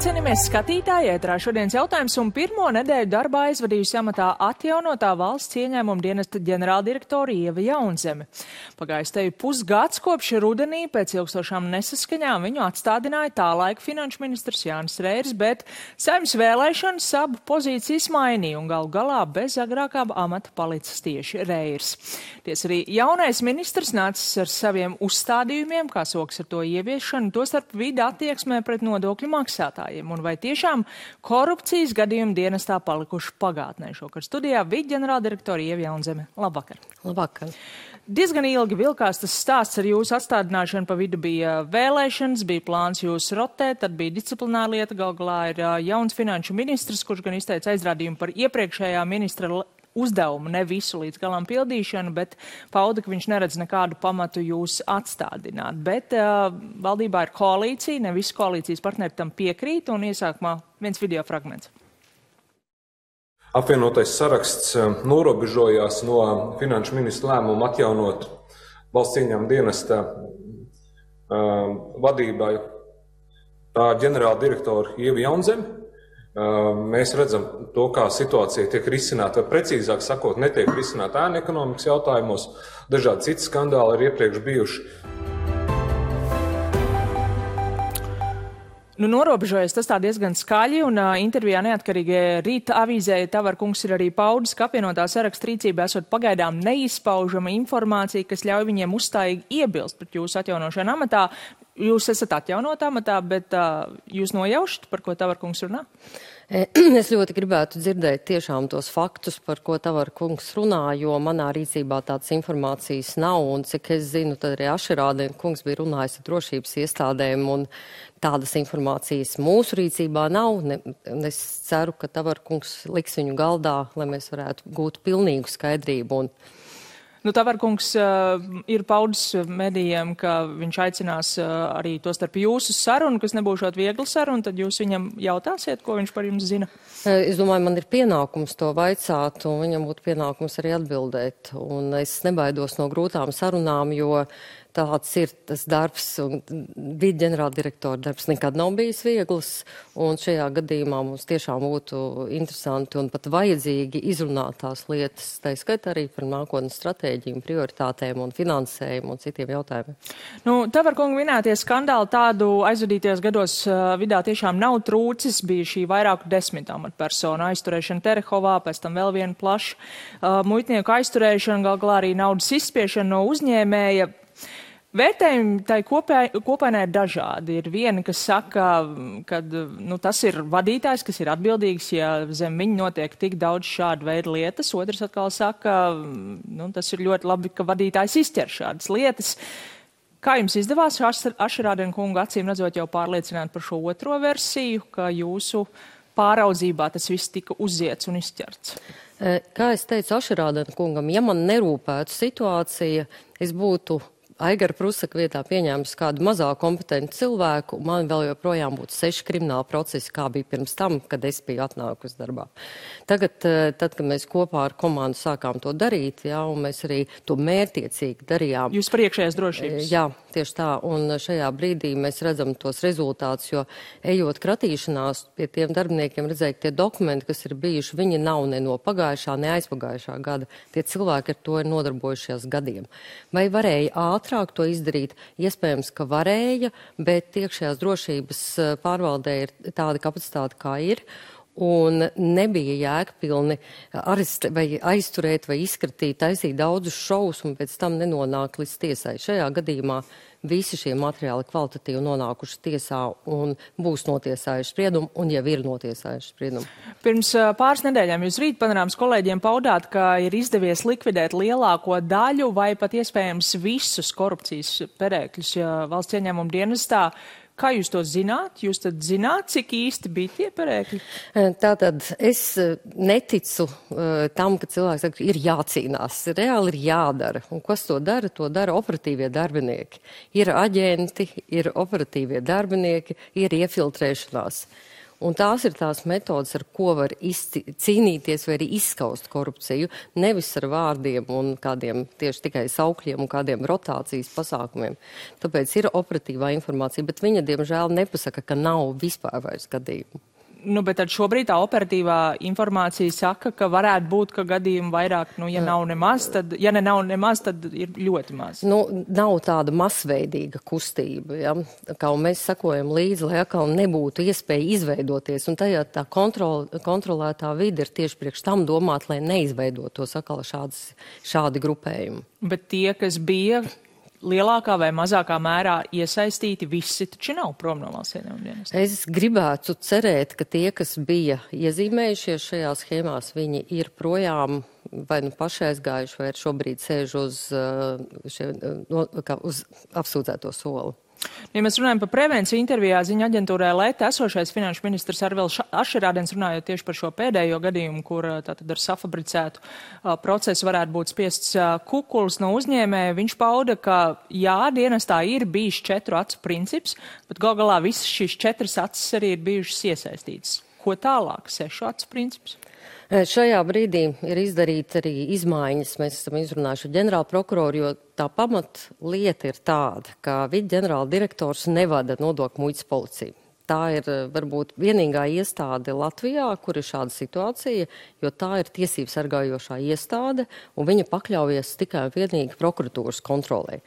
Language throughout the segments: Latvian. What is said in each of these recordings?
cienījamies skatītāji, ētrā šodienas jautājums un pirmo nedēļu darbā aizvadījusi amatā atjaunotā valsts ieņēmuma dienesta ģenerāldirektora Ieva Jaunzeme. Pagājis teju pusgads kopš rudenī pēc ilgstošām nesaskaņām viņu atstādināja tālaika finanšu ministrs Jānis Reirs, bet Saeimas vēlēšanas abu pozīcijas mainīja un galu galā bez agrākā amata palicis tieši Reirs. Tiesa arī jaunais ministrs nācis ar saviem uzstādījumiem, kā soks ar to ieviešanu, tostarp vidi attieksmē pret nodokļu maksātājiem. Un vai tiešām korupcijas gadījumi dienestā palikuši pagātnē? Šokar studijā vidi ģenerāldirektora Ieva Jaunzeme. Labvakar. Labvakar. Diezgan ilgi vilkās tas stāsts ar jūsu atstādināšanu, pa vidu bija vēlēšanas, bija plāns jūs rotēt, tad bija disciplināra lieta, gal galā ir jauns finanšu ministrs, kurš gan izteica aizrādījumu par iepriekšējā ministra uzdevumu, ne visu līdz galam pildīšanu, bet pauda, ka viņš neredz nekādu pamatu jūs atstādināt. Bet valdībā ir koalīcija, ne visi koalīcijas partneri tam piekrīt, un iesākumā viens video fragments. Apvienotais saraksts norobežojās no finanšu ministra lēmuma atjaunot valsts ieņēmuma dienesta vadībai tā ģenerāla direktora Ieva Jaunzeme. Mēs redzam to, kā situācija tiek risināta, vai precīzāk sakot, netiek risināta ēnu ekonomikas jautājumos. Dažādi citi skandāli ir iepriekš bijuši. Norobežojas tas tā diezgan skaļi, un intervijā neatkarīgajai Rīta avīzē Tavarkungs ir arī paudis, ka apvienotā saraksta rīcībā esot pagaidām neizpaužama informācija, kas ļauj viņiem uzstājīgi iebilst pret jūsu atjaunošanu amatā. Jūs esat atjaunotā amatā, bet jūs nojaušat, par ko Tavarkungs runā? Es ļoti gribētu dzirdēt tiešām tos faktus, par ko Tavarkungs runā, jo manā rīcībā tādas informācijas nav, un cik es zinu, tad arī Ašerādien kungs bija runājis ar drošības iestādēm, un tādas informācijas mūsu rīcībā nav. Es ceru, ka Tavarkungs liks viņu galdā, lai mēs varētu gūt pilnīgu skaidrību. Tavarkungs ir paudis medijiem, ka viņš aicinās arī to starp jūsu sarunu, kas nebūšot viegli saruna, tad jūs viņam jautāsiet, ko viņš par jums zina? Es domāju, man ir pienākums to vaicāt, un viņam būtu pienākums arī atbildēt. Un es nebaidos no grūtām sarunām, jo tāds ir tas darbs, un vidi ģenerāldirektora darbs nekad nav bijis viegls, un šajā gadījumā mums tiešām būtu interesanti un pat vajadzīgi izrunāt tās lietas, tā skaitā arī par nākotnes stratēģiju, prioritātēm un finansējumu un citiem jautājumiem. Tavarkunga minētie skandāli tādu aizvadītajos gados vidā tiešām nav trūcis, bija šī vairāku 10 amatpersonu aizturēšana Terehovā, pēc tam vēl viena plaša muitnieku aizturēšana, gal galā arī naudas izspiešana no uzņēmēja. Vērtējumi tai kopainai ir dažādi. Ir vieni, kas saka, ka tas ir vadītājs, kas ir atbildīgs, ja zem viņa notiek tik daudz šādu veidu lietas. Otrs atkal saka, tas ir ļoti labi, ka vadītājs izķer šādas lietas. Kā jums izdevās Ašerādien kungu acīm redzot jau pārliecināt par šo otro versiju, ka jūsu pāraudzībā tas viss tika uziets un izķerts? Kā es teicu Ašerādien kungam, ja man nerūpētu situācija, es būtu Aigara Prusaka vietā pieņēmis kādu mazāk kompetentu cilvēku, man vēl joprojām būtu 6 krimināli procesi, kā bija pirms tam, kad es biju atnākusi darbā. Tagad, kad mēs kopā ar komandu sākām to darīt, un mēs arī to mērķtiecīgi darījām. Jūs par iekšējās drošības? Jā, tieši tā, un šajā brīdī mēs redzam tos rezultātus, jo ejot kratīšanās pie tiem darbiniekiem redzēja, ka tie dokumenti, kas ir bijuši, viņi nav ne no pagājušā, ne aizpagājušā gada. Tie cilvēki ar to ir nodarbojušies gadiem. Vai varēja ātrāk to izdarīt? Iespējams, ka varēja, bet iekšējās drošības pārvaldē ir tāda kapacitāte, kā ir. Un nebija jēgpilni aizturēt vai izskatīt, taisīt daudzus šovus un pēc tam nenonāk līdz tiesai. Šajā gadījumā visi šie materiāli kvalitatīvi nonākuši tiesā un būs notiesājuši spriedumu un jau ir notiesājuši spriedumu. Pirms pāris nedēļām jūs Rīt panorāmas kolēģiem paudāt, ka ir izdevies likvidēt lielāko daļu vai pat iespējams visus korupcijas perēkļus valsts ieņēmuma dienestā. Kā jūs to zināt? Jūs tad zināt, cik īsti bija tie perēkļi? Tātad es neticu tam, ka cilvēks saka, ir jācīnās. Reāli ir jādara. Un kas to dara? To dara operatīvie darbinieki. Ir aģenti, ir operatīvie darbinieki, ir iefiltrēšanās. Un tās ir tās metodas, ar ko var cīnīties vai arī izskaust korupciju, nevis ar vārdiem un kādiem tieši tikai saukļiem un kādiem rotācijas pasākumiem. Tāpēc ir operatīvā informācija, bet viņa, diemžēl, nepasaka, ka nav vispār vairs gadījumu. Nu, bet tad šobrīd tā operatīvā informācija saka, ka varētu būt, ka gadījumi vairāk, ja nav nemaz, tad, ja nav nemaz, tad ir ļoti maz. Nav tāda masveidīga kustība, ja? Kā mēs sakojam līdzi, lai atkal nebūtu iespēja izveidoties, un tajā tā kontrolētā vide ir tieši priekš tam domāt, lai neizveidotos atkal šādi grupējumi. Bet tie, kas bija lielākā vai mazākā mērā iesaistīti, visi taču nav prom no valsts ieņēmuma dienesta. Es gribētu cerēt, ka tie, kas bija iezīmējušies šajās schēmās, viņi ir projām vai paši aizgājuši, vai šobrīd sēž uz apsūdzēto soli. Ja mēs runājam par prevenciju, intervijā ziņa aģentūrai Leta esošais finanšu ministrs Arvils Ašerādens runājot tieši par šo pēdējo gadījumu, kur tātad ar safabricētu procesu varētu būt spiests kukuls no uzņēmēja. Viņš pauda, ka jā, dienestā ir bijis 4 acu princips, bet gal galā visas šīs 4 acis arī ir bijušas iesaistītas. Ko tālāk? 6 acu princips? Šajā brīdī ir izdarīta arī izmaiņas. Mēs esam izrunājuši ģenerāla prokuroru, jo tā pamatlieta ir tāda, ka viceģenerāla direktors nevada nodokļu muitas policiju. Tā ir varbūt vienīgā iestāde Latvijā, kur ir šāda situācija, jo tā ir tiesību sargājošā iestāde, un viņa pakļaujas tikai un vienīgi prokuratūras kontrolē.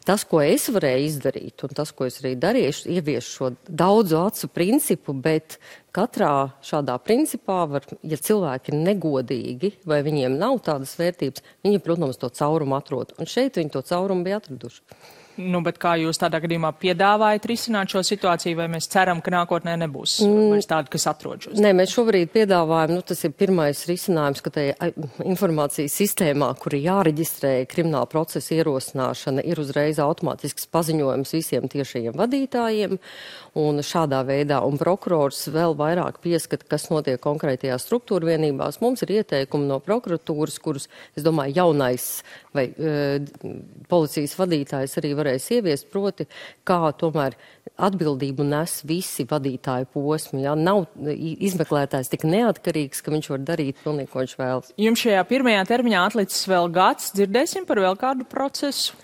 Tas, ko es varēju izdarīt, un tas, ko es arī darīšu, ievies šo daudzu acu principu, bet katrā šādā principā var, ja cilvēki ir negodīgi vai viņiem nav tādas vērtības, viņi, protams, to caurumu atrod. Un šeit viņi to caurumu bija atraduši. Bet kā jūs tādā gadījumā piedāvājat risināt šo situāciju, vai mēs ceram, ka nākotnē nebūs vairs tādi, kas atrod šos? Nē, mēs šobrīd piedāvājam, tas ir pirmais risinājums, ka tajā informācijas sistēmā, kur ir jāreģistrē krimināla procesa ierosināšana, ir uzreiz automātisks paziņojums visiem tiešajiem vadītājiem, un šādā veidā, un prokurors vēl vairāk pieskata, kas notiek konkrētajās struktūra vienībās. Mums ir ieteikumi no prokuratūras, kurus, es domāju, jaunais vai policijas vadītājs arī varēs ieviest, proti, kā tomēr atbildību nes visi vadītāju posmi. Ja? Nav izmeklētājs tik neatkarīgs, ka viņš var darīt pilnīgi, ko viņš vēlas. Jums šajā pirmajā termiņā atlicis vēl gads. Dzirdēsim par vēl kādu procesu?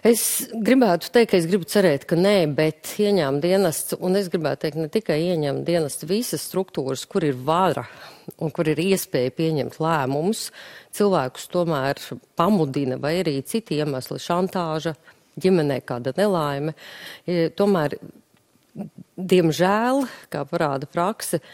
Es gribētu teikt, ka es gribu cerēt, ka nē, bet ieņēmuma dienests, un es gribētu teikt ne tikai ieņēmuma dienests, visas struktūras, kur ir vara un kur ir iespēja pieņemt lēmumus, cilvēkus tomēr pamudina vai arī citi iemesli, šantāža, ģimenē kāda nelaime. Tomēr, diemžēl, kā parāda prakse,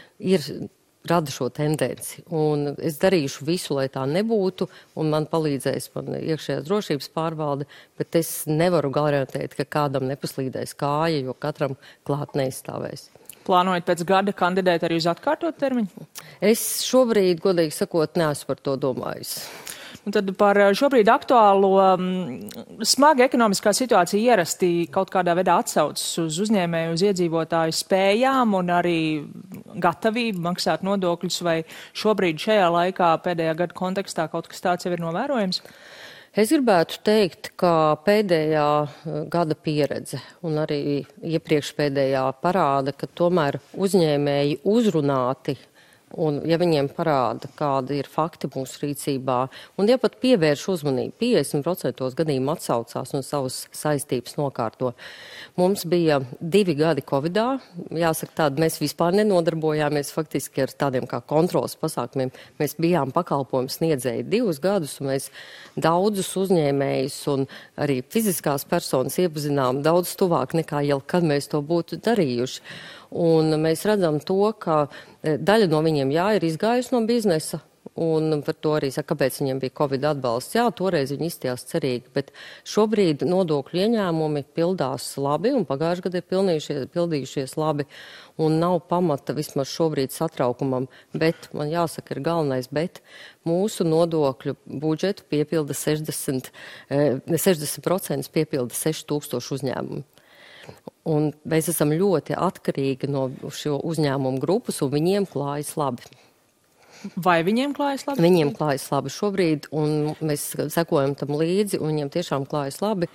rada šo tendenci. Un es darīšu visu, lai tā nebūtu, un man palīdzēs iekšējās drošības pārvalde, bet es nevaru garantēt, ka kādam nepaslīdēs kāja, jo katram klāt neizstāvēs. Plānojat pēc gada kandidēt arī uz atkārtot termiņu? Es šobrīd, godīgi sakot, neesmu par to domājis. Un tad par šobrīd aktuālo smaga ekonomiskā situācija ierasti kaut kādā veidā atsaucas uz uzņēmēju, uz iedzīvotāju spējām un arī gatavību maksāt nodokļus, vai šobrīd šajā laikā pēdējā gada kontekstā kaut kas tāds jau ir novērojams? Es gribētu teikt, ka pēdējā gada pieredze un arī iepriekšpēdējā parāda, ka tomēr uzņēmēji uzrunāti, un ja viņiem parāda, kādi ir fakti mūsu rīcībā, un ja pat pievērš uzmanību, 50% gadījumu atsaucās un savas saistības nokārto. Mums bija 2 gadi Covidā, jāsaka tādi, mēs vispār nenodarbojāmies faktiski ar tādiem kā kontrolas pasākumiem. Mēs bijām pakalpojumu sniedzēji 2 gadus, un mēs daudzus uzņēmējus un arī fiziskās personas iepazinām daudz tuvāk nekā jau kad mēs to būtu darījuši. Un mēs redzam to, ka daļa no viņiem ir izgājusi no biznesa, un par to arī saka, kāpēc viņiem bija Covid atbalsts. Jā, toreiz viņi izstījās cerīgi, bet šobrīd nodokļu ieņēmumi pildās labi, un pagājušajā gadā ir pildījušies labi, un nav pamata vismaz šobrīd satraukumam, bet, man jāsaka, ir galvenais, bet mūsu nodokļu budžetu piepilda 60% piepilda 6000 uzņēmumu. Un mēs esam ļoti atkarīgi no šo uzņēmumu grupas, un viņiem klājas labi. Vai viņiem klājas labi? Viņiem klājas labi šobrīd, un mēs sekojam tam līdzi, un viņiem tiešām klājas labi.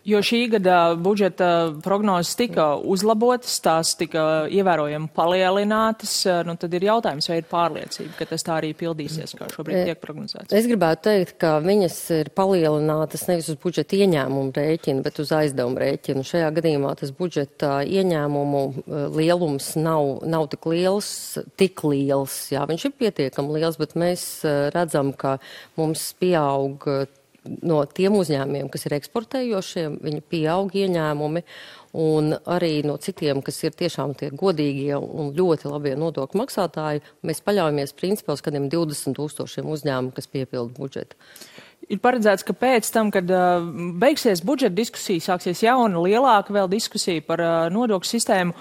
Jo šī gada budžeta prognozes tika uzlabotas, tās tika ievērojami palielinātas, nu tad ir jautājums, vai ir pārliecība, ka tas tā arī pildīsies, kā šobrīd tiek prognozēts. Es gribētu teikt, ka viņas ir palielinātas nevis uz budžeta ieņēmumu rēķinu, bet uz aizdevumu rēķinu. Šajā gadījumā tas budžeta ieņēmumu lielums nav tik liels. Jā, viņš ir pietiekami liels, bet mēs redzam, ka mums pieaug no tiem uzņēmumiem, kas ir eksportējošiem, viņi pieaug ieņēmumi, un arī no citiem, kas ir tiešām tie godīgie un ļoti labie nodokļu maksātāji, mēs paļaujamies principā uz kādiem 20 000 uzņēmumu, kas piepilda budžetu. Ir paredzēts, ka pēc tam, kad beigsies budžeta diskusija, sāksies jauna, lielāka vēl diskusija par nodokļu sistēmu.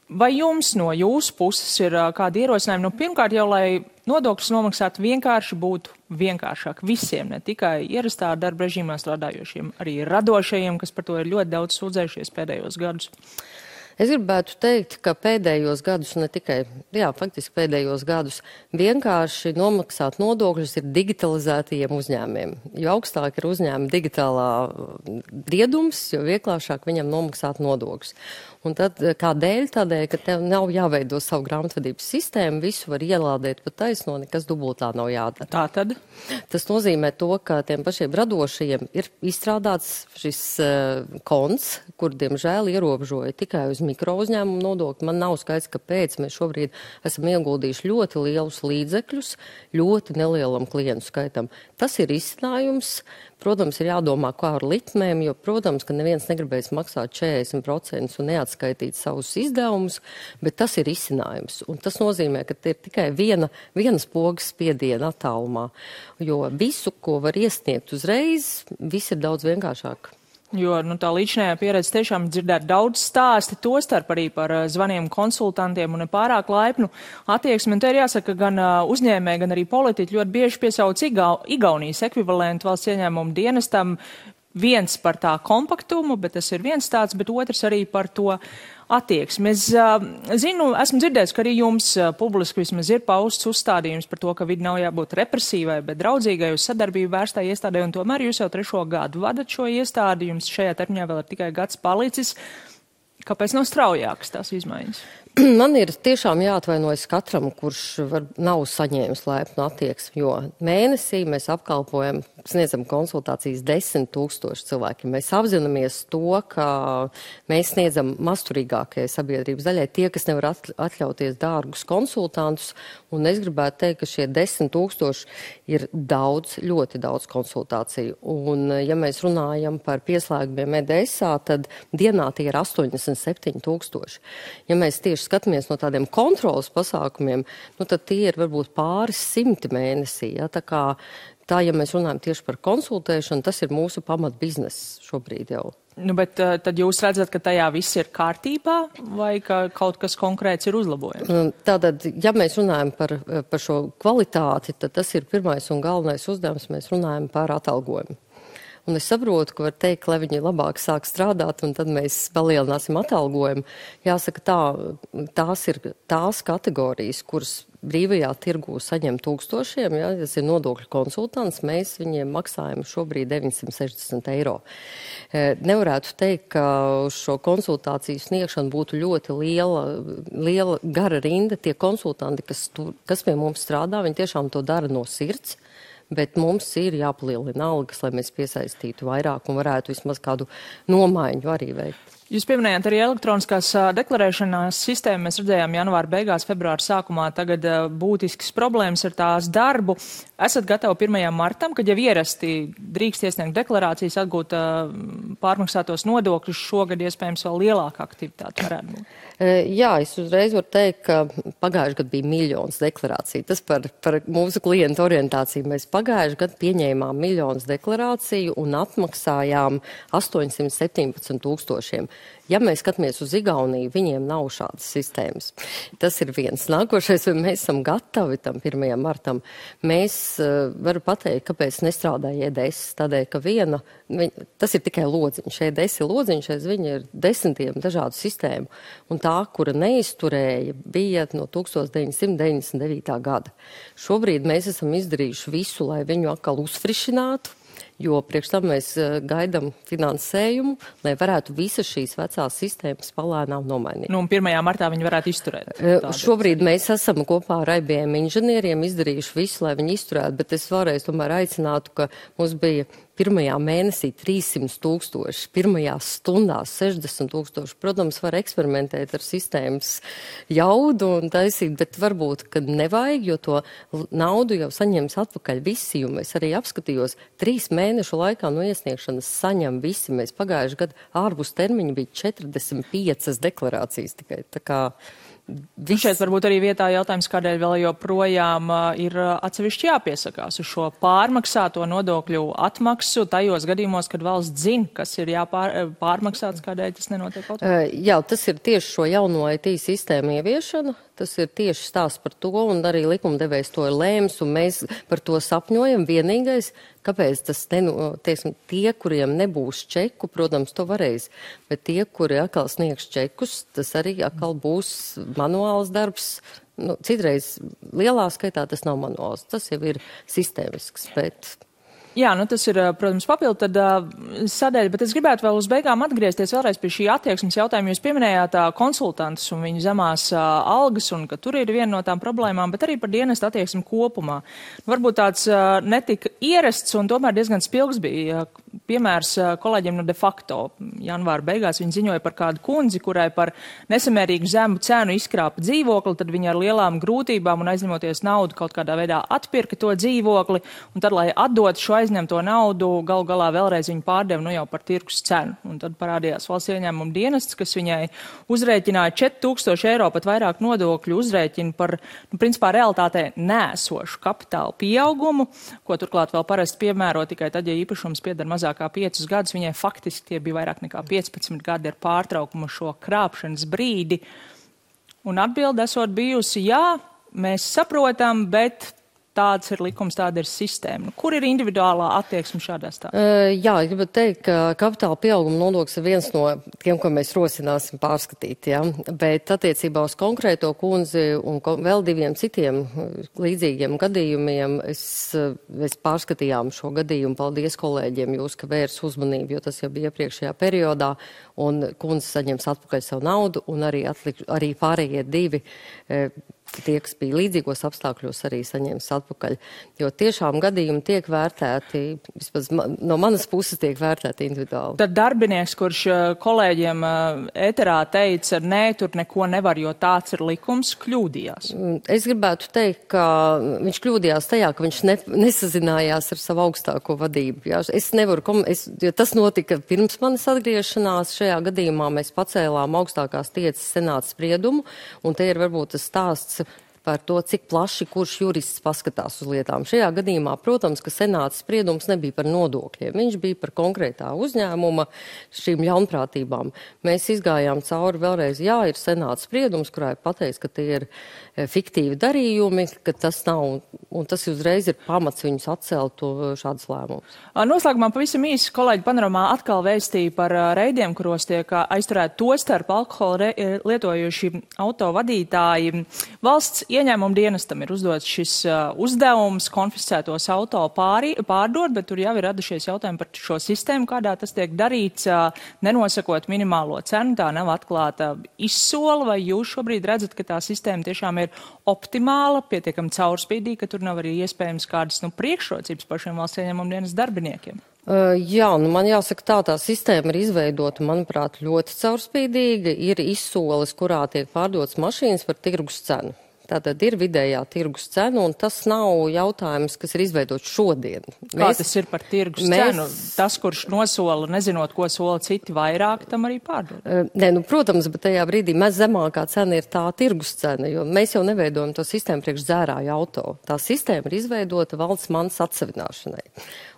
Vai jums no jūsu puses ir kādi ierosinājumi? Nu, pirmkārt jau, lai nodokļus nomaksāt vienkārši būtu vienkāršāk visiem, ne tikai ierastā darba režīmā strādājošiem, arī radošajiem, kas par to ir ļoti daudz sūdzējušies pēdējos gadus. Es gribētu teikt, ka pēdējos gadus, ne tikai, faktiski pēdējos gadus, vienkārši nomaksāt nodokļus ir digitalizētajiem uzņēmiem. Jo augstāk ir uzņēmuma digitālā briedums, jo vieglāšāk viņam nomaksāt nodokļus. Un tad kādēļ? Tādēļ, ka tev nav jāveido savu grāmatvedības sistēmu, visu var ielādēt pa taisno, nekas dubultā nav jādara. Tā tad? Tas nozīmē to, ka tiem pašiem radošajiem ir izstrādāts šis konts, kur, diemžēl, ierobežoja tikai uz mikro uzņēmumu nodokli. Man nav skaidrs, kāpēc mēs šobrīd esam ieguldījuši ļoti lielus līdzekļus ļoti nelielam klientu skaitam. Tas ir izcinājums. Protams, ir jādomā, kā ar likmēm, jo, protams, ka neviens negribēs maksāt 40% un neatskaitīt savus izdevumus, bet tas ir izcinājums. Un tas nozīmē, ka te ir tikai vienas pogas spiediena attālumā, jo visu, ko var iesniegt uzreiz, viss ir daudz vienkāršāk. Jo tā līdzinājā pieredze tiešām dzirdēt daudz stāsti, tostarp arī par zvaniem konsultantiem un nepārāk laipnu attieksmi. Un te ir jāsaka, gan uzņēmēji, gan arī politiķi ļoti bieži piesauc Igaunijas ekvivalentu valsts ieņēmumu dienestam. Viens par tā kompaktumu, bet tas ir viens tāds, bet otrs arī par to attieksmi. Es esmu dzirdējis, ka arī jums publiski vismaz ir pausts uzstādījums par to, ka vidi nav jābūt represīvai, bet draudzīgai uz sadarbību vērstai iestādē, un tomēr jūs jau 3. gadu vadat šo iestādi, jums šajā termiņā vēl ir tikai gads palicis. Kāpēc nav straujākas tās izmaiņas? Man ir tiešām jāatvainojas katram, kurš nav saņēmis laipnu attieksmi, jo mēnesī mēs apkalpojam, sniedzam konsultācijas 10 000 cilvēkiem. Mēs apzināmies to, ka mēs sniedzam mazturīgākajai sabiedrības daļai tie, kas nevar atļauties dārgus konsultantus, un es gribētu teikt, ka šie 10 000 ir daudz, ļoti daudz konsultāciju. Un, ja mēs runājam par pieslēgumiem EDSā, tad dienā tie ir 87 000. Ja mēs tieši skatāmies no tādiem kontrolas pasākumiem, tad tie ir varbūt pāris simti mēnesī. Ja? Tā, ja mēs runājam tieši par konsultēšanu, tas ir mūsu pamat bizness šobrīd jau. Bet tad jūs redzat, ka tajā viss ir kārtībā vai ka kaut kas konkrēts ir uzlabojams? Tātad, ja mēs runājam par šo kvalitāti, tad tas ir pirmais un galvenais uzdevums. Mēs runājam par atalgojumu. Un es saprotu, ka var teikt, lai viņi labāk sāk strādāt, un tad mēs palielināsim atalgojumu. Jāsaka, tās ir tās kategorijas, kuras brīvajā tirgū saņem tūkstošiem, ja, tas ir nodokļu konsultants, mēs viņiem maksājam šobrīd 960 €. Nevarētu teikt, ka uz šo konsultāciju sniegšanu būtu ļoti liela gara rinda. Tie konsultanti, kas pie mums strādā, viņi tiešām to dara no sirds. Bet mums ir jāpalielina algas, lai mēs piesaistītu vairāk un varētu vismaz kādu nomaiņu arī veikt. Jūs pieminējāt arī elektroniskās deklarēšanās sistēmu. Mēs redzējām janvāra beigās, februāra sākumā tagad būtiskas problēmas ar tās darbu. Esat gatavi 1. martam, kad jau ierasti drīkst iesniegt deklarācijas, atgūt pārmaksātos nodokļus, šogad iespējams vēl lielāka aktivitāte varētu būt? Jā, es uzreiz varu teikt, ka pagājuši gadu bija 1 000 000 deklarāciju. Tas par mūsu klientu orientāciju. Mēs pagājuši gadu pieņēmām 1 000 000 deklarāciju un atmaksājām 817 000. Ja mēs skatāmies uz Igauniju, viņiem nav šādas sistēmas. Tas ir viens. Nākošais, vai mēs esam gatavi tam 1. martam. Mēs varu pateikt, kāpēc nestrādāja EDS. Tādēļ, ka tas ir tikai lodziņš. EDS ir lodziņš, aiz viņa ir desmitiem dažādu sistēmu. Un tā, kura neizturēja, bija no 1999. gada. Šobrīd mēs esam izdarījuši visu, lai viņu atkal uzfrišinātu. jo priekš tam mēs gaidām finansējumu, lai varētu visas šīs vecās sistēmas palēnām nomainīt. Nu, un 1. martā viņi varētu izturēt. Šobrīd mēs esam kopā ar IBM inženieriem izdarījuši visu, lai viņi izturētu, bet es vēlreiz tomēr aicinātu, ka mums bija pirmajā mēnesī 300,000, pirmajā stundā 60,000. Protams, var eksperimentēt ar sistēmas jaudu un taisīt, bet varbūt, ka nevajag, jo to naudu jau saņems atpakaļ visi, jo mēs arī apskatījos 3 mēnešu laikā no iesniegšanas saņem visi. Mēs pagājuši gadu ārpus termiņa bija 45 deklarācijas tikai. Tā kā šeit varbūt arī vietā jautājums, kādēļ vēl joprojām ir atsevišķi jāpiesakās uz šo pārmaksāto nodokļu atmaksu tajos gadījumos, kad valsts zina, kas ir jāpārmaksāts, kādēļ tas nenotiek kaut kā? Jā, tas ir tieši šo jauno IT sistēmu ieviešana. Tas ir tieši stāsts par to, un arī likumdevējs to ir lēms, un mēs par to sapņojam. Vienīgais, kāpēc tas, teiksim, tie, kuriem nebūs čeku, protams, to varēs, bet tie, kuri atkal sniegs čekus, tas arī atkal būs manuāls darbs. Nu, citreiz lielā skaitā tas nav manuāls, tas jau ir sistēmisks, bet... Jā, nu tas ir, protams, papildu tad sadaļa, bet es gribētu vēl uz beigām atgriezties vēlreiz pie šī attieksmes jautājuma. Jūs pieminējāt konsultantus un viņu zemās algas, un ka tur ir viena no tām problēmām, bet arī par dienestu attieksmi kopumā. Varbūt tāds netika ierasts un tomēr diezgan spilgs bija piemērs kolēģiem no de facto. Janvāra beigās viņi ziņoja par kādu kundzi, kurai par nesamērīgu zemu cenu izkrāpa dzīvokli, tad viņa ar lielām grūtībām un aizņemoties naudu kaut kādā veidā atpirka to dzīvokli, un tad, lai atdot šo aizņemto naudu, galu galā vēlreiz viņu pārdeva nu jau par tirgus cenu. Un tad parādījās valsts ieņēmuma dienests, kas viņai uzrēķināja 4,000 eiro, pat vairāk nodokļu uzrēķinu par, nu, principā, realitātē nēsošu kapitāla pieaugumu, ko turklāt vēl parasti piemēro tikai tad, ja īpašums pieder mazāk kā 5 gadus, viņai faktiski tie bija vairāk nekā 15 gadi ar pārtraukumu šo krāpšanas brīdi. Un atbilde esot bijusi, jā, mēs saprotam, bet tāds ir likums, tāda ir sistēma. Kur ir individuālā attieksme šādā stāstā? Jā, gribu teikt, ka kapitāla pieauguma nodoklis ir viens no tiem, ko mēs rosināsim pārskatīt, ja? Bet attiecībā uz konkrēto kundzi un vēl 2 citiem līdzīgiem gadījumiem mēs pārskatījām šo gadījumu. Paldies kolēģiem jūs, ka vērs uzmanību, jo tas jau bija iepriekšējā periodā, un kundze saņems atpakaļ savu naudu, un arī pārējie 2 tie, kas bija līdzīgos apstākļos, arī saņems atpakaļ. Jo tiešām gadījumi tiek vērtēti, vismaz no manas puses tiek vērtēti individuāli. Tad darbinieks, kurš kolēģiem ēterā teica, nē, tur neko nevar, jo tāds ir likums, kļūdījās. Es gribētu teikt, ka viņš kļūdījās tajā, ka viņš nesazinājās ar savu augstāko vadību. Jā. Es nevaru, jo tas notika pirms manas atgriešanās. Šajā gadījumā mēs pacēlām augstākās tiesas senāta spriedumu, un te ir varbūt tas stāsts par to, cik plaši kurš jurists paskatās uz lietām. Šajā gadījumā, protams, ka senāta spriedums nebija par nodokļiem. Viņš bija par konkrētā uzņēmuma šīm ļaunprātībām. Mēs izgājām cauri vēlreiz, jā, ir senāta spriedums, kurā ir pateicis, ka tie ir fiktīvi darījumi, ka tas nav, un tas uzreiz ir pamats viņus atcelt šādas lēmumus. Noslēgumā pavisam īsi kolēģi Panorāmā atkal vēstīja par reidiem, kuros tiek aizturēti tostarp alkoholu lietojuši autovadītāji. Valsts ieņēmuma dienestam ir uzdots šis uzdevums konfiscētos auto pārdot, bet tur jau ir radušies jautājumi par šo sistēmu, kādā tas tiek darīts, nenosakot minimālo cenu, tā nav atklāta izsola, vai jūs šobrīd redzat, ka tā sistēma tiešām ir optimāla, pietiekami caurspīdīga, ka tur nav arī iespējams kādas priekšrocības pašiem valsts ieņēmuma dienas darbiniekiem? Jā, man jāsaka tā sistēma ir izveidota, manuprāt, ļoti caurspīdīga, ir izsoles, kurā tiek pārdotas mašīnas par tirgus cenu. Tātad ir vidējā tirgus cena, un tas nav jautājums, kas ir izveidots šodien. Kā tas ir par tirgus cenu? Tas, kurš nosola, nezinot, ko sola citi vairāk, tam arī pārdod? Nē, protams, bet tajā brīdī zemākā cena ir tā tirgus cena, jo mēs jau neveidojam to sistēmu priekš dzērāju auto. Tā sistēma ir izveidota valsts manas atsavināšanai.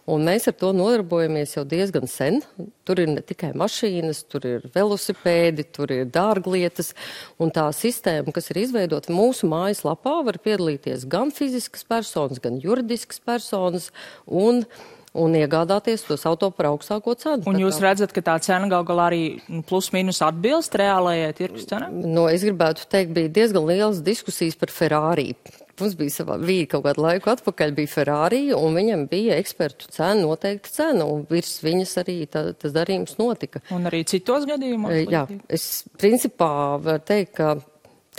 Un mēs ar to nodarbojamies jau diezgan sen. Tur ir ne tikai mašīnas, tur ir velosipēdi, tur ir dārglietas. Un tā sistēma, kas ir izveidota mūsu mājaslapā, var piedalīties gan fiziskas personas, gan juridiskas personas un iegādāties tos auto par augstāko cenu. Un jūs redzat, ka tā cena gal galā arī plus mīnus atbilst reālajai tirgus cenai? Es gribētu teikt, bija diezgan lielas diskusijas par Ferrari. Mums bija kaut kādu laiku atpakaļ, bija Ferrari, un viņam bija ekspertu cena, noteikta cena, un virs viņas arī tas darījums notika. Un arī citos gadījumos? Jā, es principā varu teikt, ka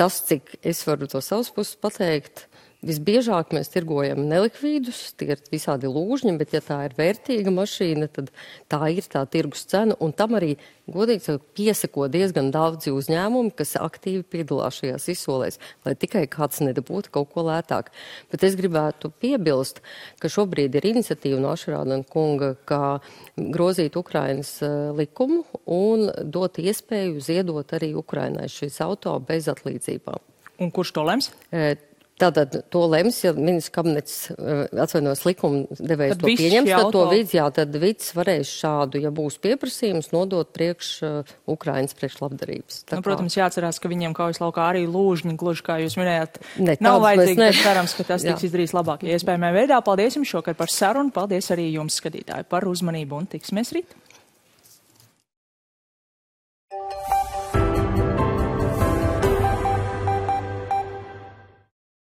tas, cik es varu to savas puses pateikt, visbiežāk mēs tirgojam nelikvīdus, tie ir visādi lūžņi, bet ja tā ir vērtīga mašīna, tad tā ir tā tirgus cena, un tam arī, godīgi sakot, piesako diezgan daudzi uzņēmumi, kas aktīvi piedalās šajās izsolēs, lai tikai kāds nedabūtu kaut ko lētāk. Bet es gribētu piebilst, ka šobrīd ir iniciatīva no Ašerādena kunga, kā grozīt Ukrainas likumu un dot iespēju ziedot arī Ukrainai šīs auto bez atlīdzībām. Un kurš to lems? Tātad to lems, ja ministrs kabinets atvainojas likuma devējs to pieņems, tad vids varēs šādu, ja būs pieprasījums, nodot priekš Ukrainas priekšlabdarības. Protams, jāatcerās, ka viņiem kaujas laukā arī lūžņi, gluži kā jūs minējāt, nav vajadzīgi, bet cerams, ka tas tiks izdarīts labāk iespējamā veidā. Paldies jums šokar par sarunu, paldies arī jums, skatītāji, par uzmanību un tiksimies rīt.